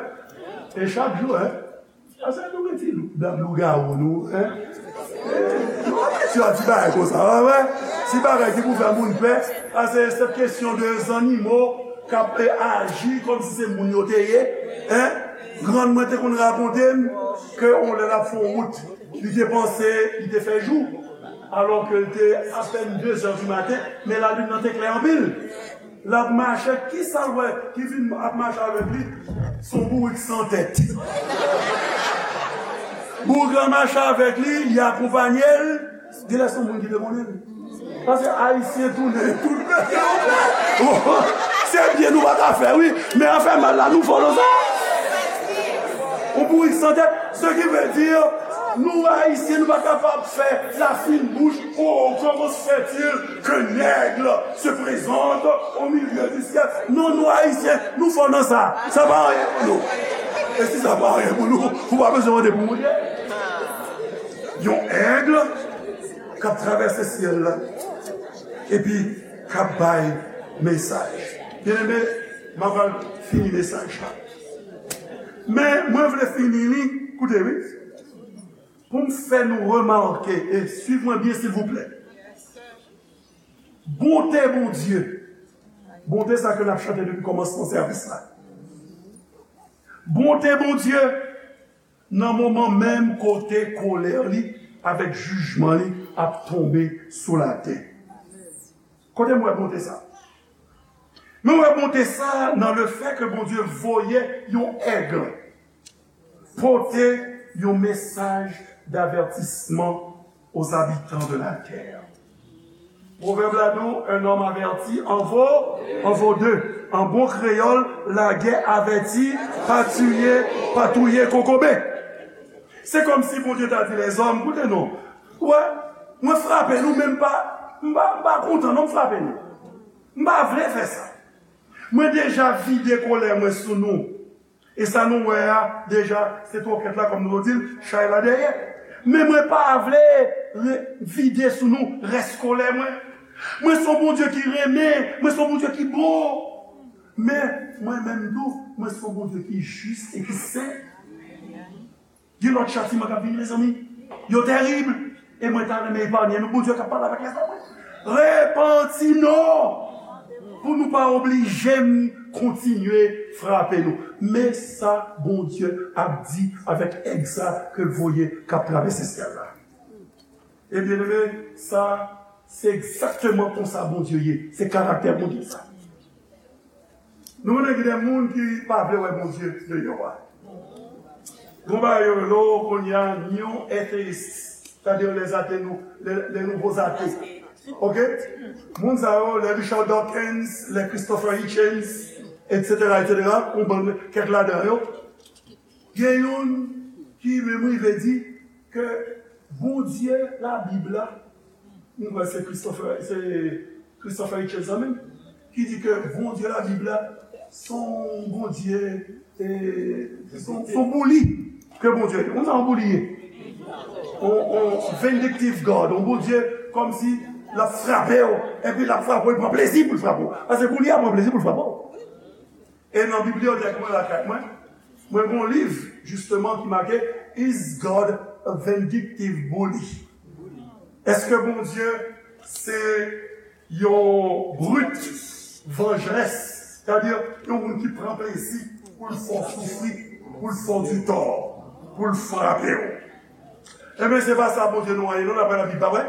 E chak jou, hein? Paske nou gen ti dab lougawou nou, en? Nou abitye a ti bagay konsa, pa vre? Ti bagay ki pou fè moun pè, paske se kesyon de zannimo k ap, eh, aji kòmsi se moun yo te ye, en? Grann mwen te konn rakonte m ke yon lè l ap fè yon wout, li te panse li te fè jou, alò ke l te apèn de zè di maten, men lalin nan te klè anpil. L ap mache, kisa l wè ki vin ap mache avèk li? Se yon bourik san tèt. Bourik la mache avèk li, li akonpanye l. Genlè se yon moun ki te konnen l. Paske Ayisyen tounen tout. Se byen nou pa ka fè, wi, men afè mal la, nou fò nan sa. Yon bourik san tèt, ce qui veut dire, nou Ayisyen, nou pa kapab fè la fine bouche. Oh, comment se fait-il qu'un aigle se présente au milieu du ciel? Non, nou Ayisyen, nou fò nan sa. Sa pa anyen pou nou. E si sa pa anyen pou nou, ou pa bezwen mande pou mouye. Yon aigle k ap travèse syèl la, epi k ap bay mesaj. Byeneme, m ap al fini mesaj la. Men, mwen vle fini li, koute, wi. Pou m fè nou remake, e swiv mwen byen, silvouplè. Bonte Bondye. Bonte sa ke n ap chante depi kòmansman sèvis la. Bonte Bondye, nan moman menm kote kolè li avèk jijman li ap tonbe sou latè. Kote m wè bonte sa? Mwen wè bonte sa nan le fè ke Bondye voye yon aigle pote yon mesaj d'avertissement aux habitants de la terre. Pwovèb la di w, un homme averti en vaut, en vaut deux. An bon kreyòl, lagè avèti pa tiye, pa touye kokobe. Se kòmsi Bondye ta di lèzòm, koute non, wè, mwen frape nou, men m pa, m pa, m pa kontan non, m frape nou. M pa vle fè sa. Mwen deja vide kolè mwen sou nou. E sa nou wè a, deja, se twokèt la, kòm nou di l, chay la dèyè. Men mwen pa vle re- vide sou nou rès kolè mwen. Mwen se yon Bondye ki renmen, mwen se yon Bondye ki bon. Men, mwen menm tou, mwen se yon Bondye ki jis e ki sen. Gen lòt chatiman k ap vini, mezanmi. Yo terib. E mwen ta renmen epanye nou. Bondye k ap pale avèk lèzòm. Repanti nou! Pou nou pa oblije m kontinye frape nou. Men sa Bondye ap di avèk èg sa ke l voye k ap travèse syèl la. E byeneme, sa, se egzakteman konsa Bondye ye. Se karaktè Bondye sa. Nou konnen gen de moun ki pa vle wè Bondye deyò a. Gon bagay yo rele w kounye a new atheist, c'est-à-dire les athées nou, les, les nouveaux athées. Ok? Moun sa yo, les Richard Dawkins, les Christopher Hitchens, et cetera, et cetera, yon bann, kèk ladan yo. Gen youn ki menm rive di ke Bondye Labib la, m kwè se Christopher, se Christopher Hitchens sa menm, ki di ke Bondye Labib la, se yon Bondye, e, se yon, se yon bouli ke Bondye ye. Ou konn sa yon bouli ye? On, on vindictive God, on Bondye kòmsi l ap frape w, epi l ap frape w, li pran plezi pou l frape w. Paske bouli a pran plezi pou l frape w. E nan bibliyotèk mwen lakay mwen, mwen gen yon liv, jisteman, ki make Is God a Vindictive Bully? Èske Bondye se yon brut vanjrès? Sètadi, yon moun ki pran plezi pou l fè w soufri, pou l fè w di tò, pou l frape w. Ebyen, se pa sa Bondye nou an ye, non, daprè Labib, pa vre?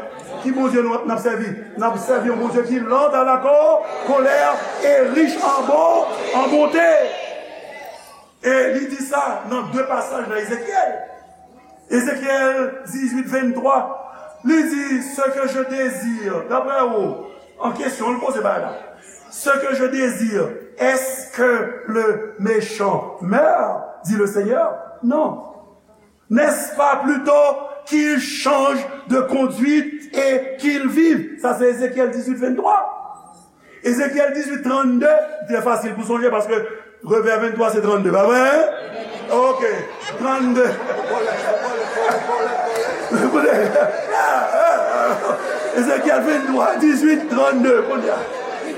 Ki Bondye nou, n ap sèvi? N ap sèvi yon Bondye ki lent à la co- colère et riche en bon, en bonté. E li di sa nan de pasaj nan Ezekyèl. Ezekyèl dizuit venntwa, li di, Ce que je désire, daprè ou, an kesyon, l poze bagay la. Ce que je désire, est-ce que le méchant meure, dit le Seigneur? Non. N'est-ce pas plutôt qu'il change de conduite et qu'il vive? Sa se Ezekyèl dizuit venntwa. Ezekyèl dizuit trannde, trè fasil pou sonje paske Revè venntwa se trannde, pa vre? Ok, trannde. Ezekyèl venntwa, dizuit, trannde, kounye a.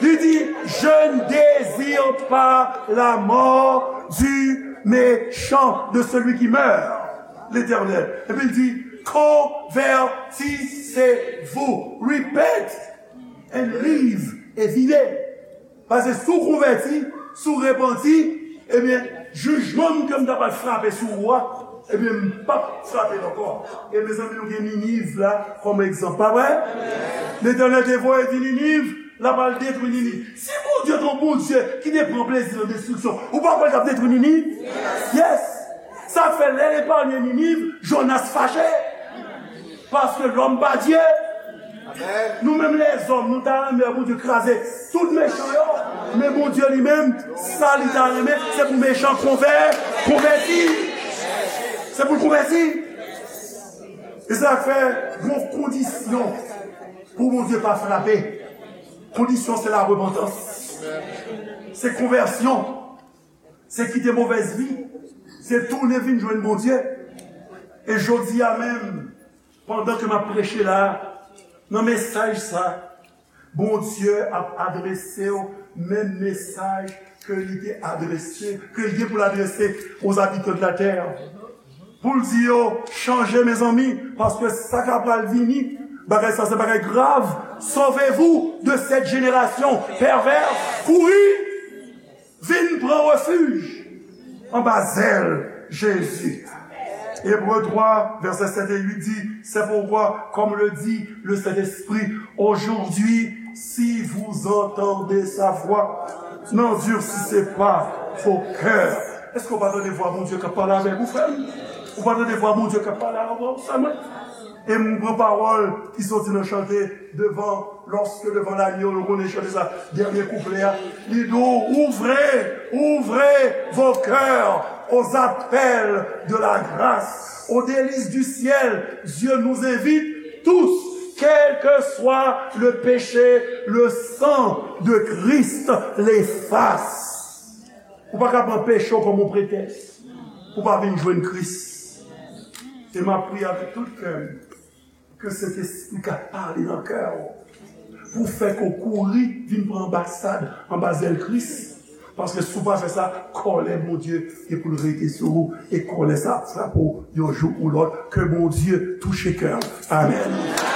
Li di, Je ne désire pas la mort du méchant, de celui qui meurt. Letènèl. Epi l di, convertissez-vous, repent and live, e vire. Paske si w konvèti, si w repanti, ebyen, jijman m ke m ta pral frape sou ou a, ebyen, m p ap frape l ankò. E mezanmi, nou gen Niniv la kòm egzanp, pa vre? Letènèl te voye di Niniv, l ap al detwi Niniv. Si Bondye te yon Bondye ki te pran plezi nan destriksyon, ou pa kwè l t ap detwi Niniv? Yes! Sa k fè lè l epanye Niniv, Jonas fache. Paske lòm pa Dye. Nou menm lèzòm, nou ta renmen Bondye kraze tout mechan yo. Men Bondye li menm, sa li ta renmen, se pou mechan konvè, konvèti. Se pou l konvèti. E sa k fè gon kondisyon pou Bondye pa frape. Kondisyon se la repantans. Se konvèsyon. Se kite movèz vi. Se tounen vin jwenn Bondye. E jodi a menm, pandan ke m ap preche la, nan mesaj sa, Bondye ap adrese w menm mesaj ke li te adrese, ke li gen pou l adrese aux habitants de la terre. Pou l di yo, chanje, mezanmi, paske sa k ap pral vini, bagay sa se bagay grav. Sauvez-vous de cette génération perverse. Kouri! Vin pran refij anba zèl Jezi. Ebre twa, vèsè sèt e uit di, c'est pourquoi, comme le dit le Saint-Esprit, aujourd'hui, si vous entendez sa voix, n'endurcissez pas vos cœurs. Èske w pa tande vwa Bondye k ap pale avèk ou, frè m? Ou pa tande vwa Bondye k ap pale avèk ou, sè mwen? E m pran pawòl ki soti nan chante devan, lorsque devant l'agneau, nou konnen chante sa, dènye kouplè a. Li di w, ouvrez, ouvrez vos cœurs aux appels de la grâce, aux délices du ciel. Dieu nous invite tous, quel que soit le péché, le sang de Christ l'efface. Ou pa ka pran peche w kòm yon pretèks pou pa vin jwenn Kris. E m ap priye avèk tout kè m ke Sentespri ka pale nan kè w pou fè ke w kouri vin pran anbasad anba zèl Kris. Paske si w pa fè sa, kòlè Bondye gen pou l rete sou ou, e kòlè sa ap frape w yon jou ou lòt. Ke Bondye touche kè w. Amèn.